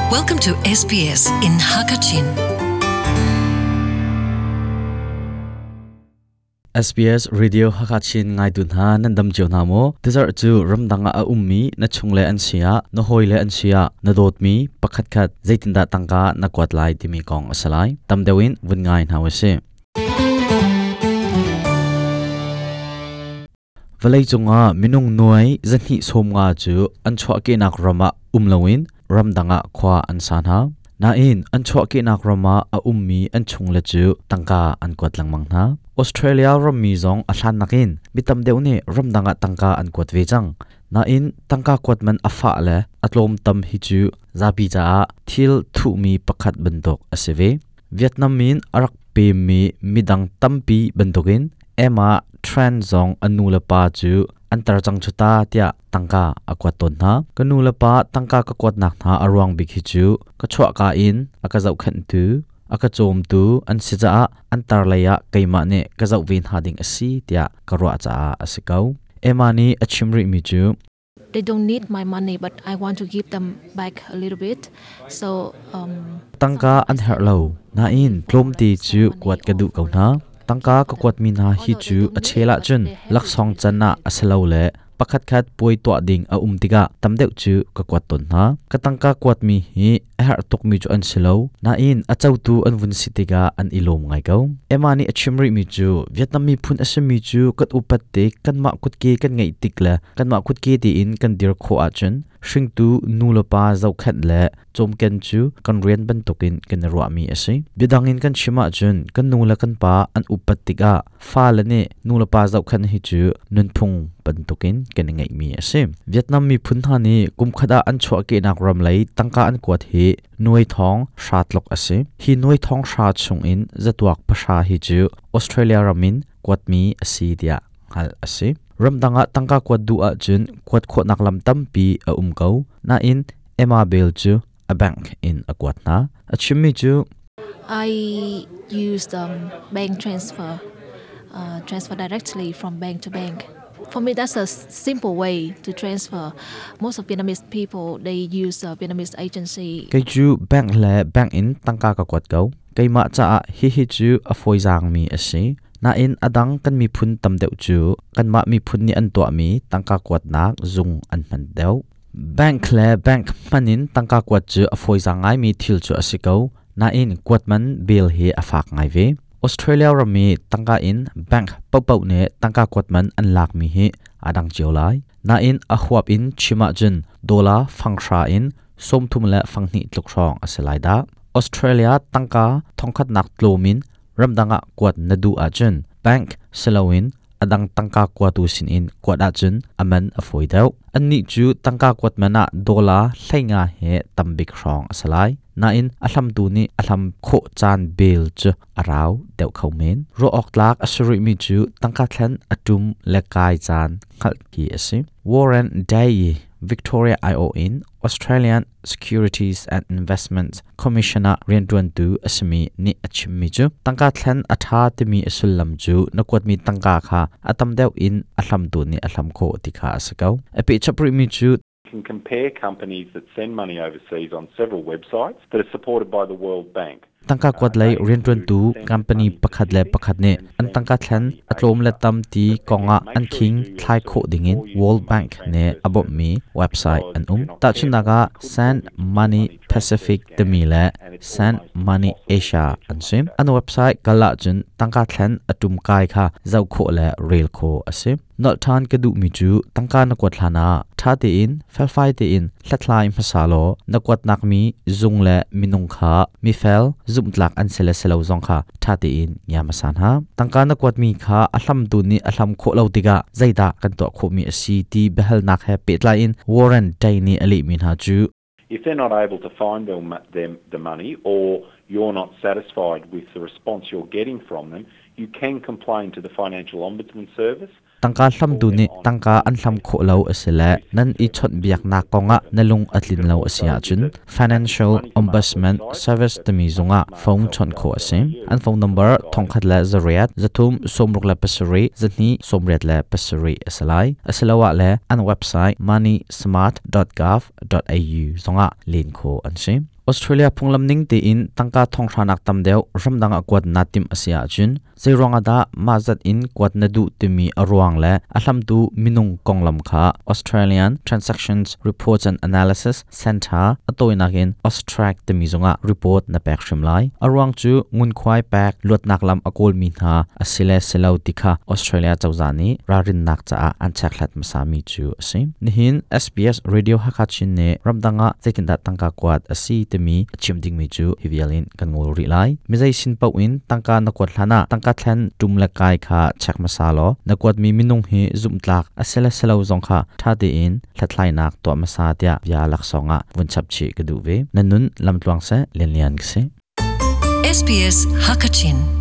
Welcome to SBS in Hakachin. SBS Radio Hakachin ngaitu hna nan dam cio hna maw? Tizarh cu ramdang ah a ummi na chungle an si ah, na hawile an si ah, na dawtmi pakhatkhat zeitindah tangka na kuat lai timi kong a si lai. Tam deuh in vun ngai hna usih. Vawleicung ah minung nuai 250 cu an chuahkehnak ram ah um loin ramdang ah khua an sa hna. Nain an chuahkehnak ram ah a ummi an chungle cu tangka an kuat lengmang hna. Australia rammi zong a hlan nakin mi tam deuh nih ramdang ah tangka an kuat ve cang. Nain tangka kuat man a fah le a tlawm tam hi cu zapi caah thil thuhmi pakhat bantuk a si ve. Vietnam in a rak pemmi midang tampi bantukin Emma Tran zong a nu le pa cu an tar cang cu ta tiah tangka a kuat tawn hna. Ka nu le pa tangka ka kuatnak hna a ruang bik hi cu ka chuahka in a ka zohkhenhtu, a ka cawmtu an si caah an tar lei ah keimah nih ka zoh ve hna ding a si tiah ka ruah caah a si ko. Emma nih a chim rihmi cu They don't need my money, but I want to give them back a little bit. So um, Tangka an herh lo. Nain tlawmte cu kuat ka duh ko hna. Tangka ka kuatmi hna hi cu a chel ahcun laksawng can ah a si lo le pakhatkhat puai tuah ding a um tikah tam deuh cu ka kuat tawn hna. Ka tangka kuatmi hi a herh tukmi cu an si lo. Nain a cotu an vun si tikah an i lawm ngai ko. Emma nih a chim rihmi cu Vietnam miphun a simi cu kan upat tik, kanmah kutke kan ngeih tik le kanmah kutke tein kan dir khawh ahcun hringtu nu le pa zohkhenh le cawmken cu kan rian bantukin kan i ruahmi a si. Biadang in kan chim ahcun kan nu le kan pa an upat tikah fale nih nu le pa zohkhenh hi cu nunphung bantukin kan i ngeihmi a si. Vietnam miphun hna nih kumkhat ah an chuahkehnak ram lei tangka an kuat hi nuai thong hra tluk a si. Hi nuai thong hra chungin zatuak pahra hi cu Australia ram in kuatmi a si tiah hngalh a si. Ramdang ah tangka kuat duh ahcun kuat khawhnak lam tampi a um ko. Nain Emma Bell cu a bank in a kuat hna. A chimmi cu I used bank transfer, transfer directly from bank to bank. For me, that's a simple way to transfer. Most of Vietnamese people, they use a Vietnamese agency. Kei cu bank le bank in tangka ka kuat ko. Keimah caah hihi cu a fawizaangmi a si. Nain a dang kan miphun tam deuh cu kanmah miphun nih an tuahmi tangka kuatnak zung an hman deuh. Bank le bank hman in tangka kuat cu a fawizaang ngaimi thil cu a si ko. Nain kuat man bill hi a fak ngai ve. Australia ram i tangka in bank paohpaoh nih tangka kuat man an lakmi hi aa dang cio lai. Nain a huap in chim ahcun dollar fanghra in 30 le fanghnih tluk hrawng a si lai dah. Australia tangka thongkhatnak tlawm in ramdang ah kuat na duh ahcun bank siloin a dang tangka kuatu sinin kuat ahcun a man a fawi deuh. Annih cu tangka kuat man ah dollar 15 he tambik hrawng a si lai. Nain a hlamtu nih a hlam khawh caan bel cu a rau deuh kho men. Ruah awk tlak a si rihmi cu tangka thlen a ṭum le kai caan hngalh hi a si. Warren Day Victoria aiawh in Australian Securities and Investments Commission ah rianṭuantu a simi nih a chimmi cu tangka thlen a ṭha timi a sullam cu na kuatmi tangka kha a tam deuh in a hlamtu nih a hlam khawh ti kha a si ko. A pehchap rihmi cu can compare companies that send money overseas on several websites that are supported by the World Bank. Tangka kuat lei rianṭuantu company pakhat le pakhat nih an tangka thlen a tlawm le tam ti kongah an khing thlai khawh dingin World Bank nih a bawmhmi website an um. Tahchunhnak ah Send Money Pacific timi le Send Money Asia an si. An website kal ahcun tangka thlen a ṭum kai kha zoh khawh le rel khawh a si. Nolh ṭhan ka duhmi cu tangka na kuat hlanah ṭha tein felfai tein hlathlai hmasa law na kuatnak mi zung le minung kha mifel zumhtlak an si le si lo zong kha ṭha tein ngia hmasa hna. Tangka na kuatmi kha a hlamtu nih a hlam khawh lo tikah zeidah kan tuah khawhmi a si ti biahalnak he pehtlai in Warren Day nih a lehmi hna cu If they're not able to find the money or you're not satisfied with the response you're getting from them, you can complain to the Financial Ombudsman Service. Tangka hlamtu nih tangka an hlam khawh lo a si le nan i chawnhbiaknak kongah na lung a tlin lo a si ahcun Financial Ombudsman Service timi zungah phone chawnh khawh a si. An phone number 1008 3 67 2 87 a si lai. Asiloah le an website moneysmart.gov au zongah len khawh an si. Australia phunglam ning tein tangka thonghranak tam deuh ramdang ah kuat na timh a si ahcun zeiruang ah dah mah zat in kuat na duh timi a ruang le a hlamtu minung konglam kha Australian Transactions Reports and Analysis Centre a tawinak in AUSTRAC timi zungah report na pek hrim lai. A ruang cu ngunkhuai pek luatnak lam a kawlmi hna a si le si lo ti kha Australia cozah nih ralrinnak caah an chekhlat hmasami cu a si. Nihin SBS Radio Hakha Chin nih ramdang ah zeitindah tangka kuat a si timi a chim dingmi cu hi vial in kan ngol rih lai. Mizei sin paoh in tangka na kuat hlan ah tangka thlen ṭum le kai kha check hmasa law na kuatmi minung hi zumhtlak a si le si lo zong kha ṭha tein hlathlainak tuah hmasa tiah bia laksawng ah vun chap chih ka duh ve. Na nun lamtluang seh, Lianlian ka si. SBS Hakachin.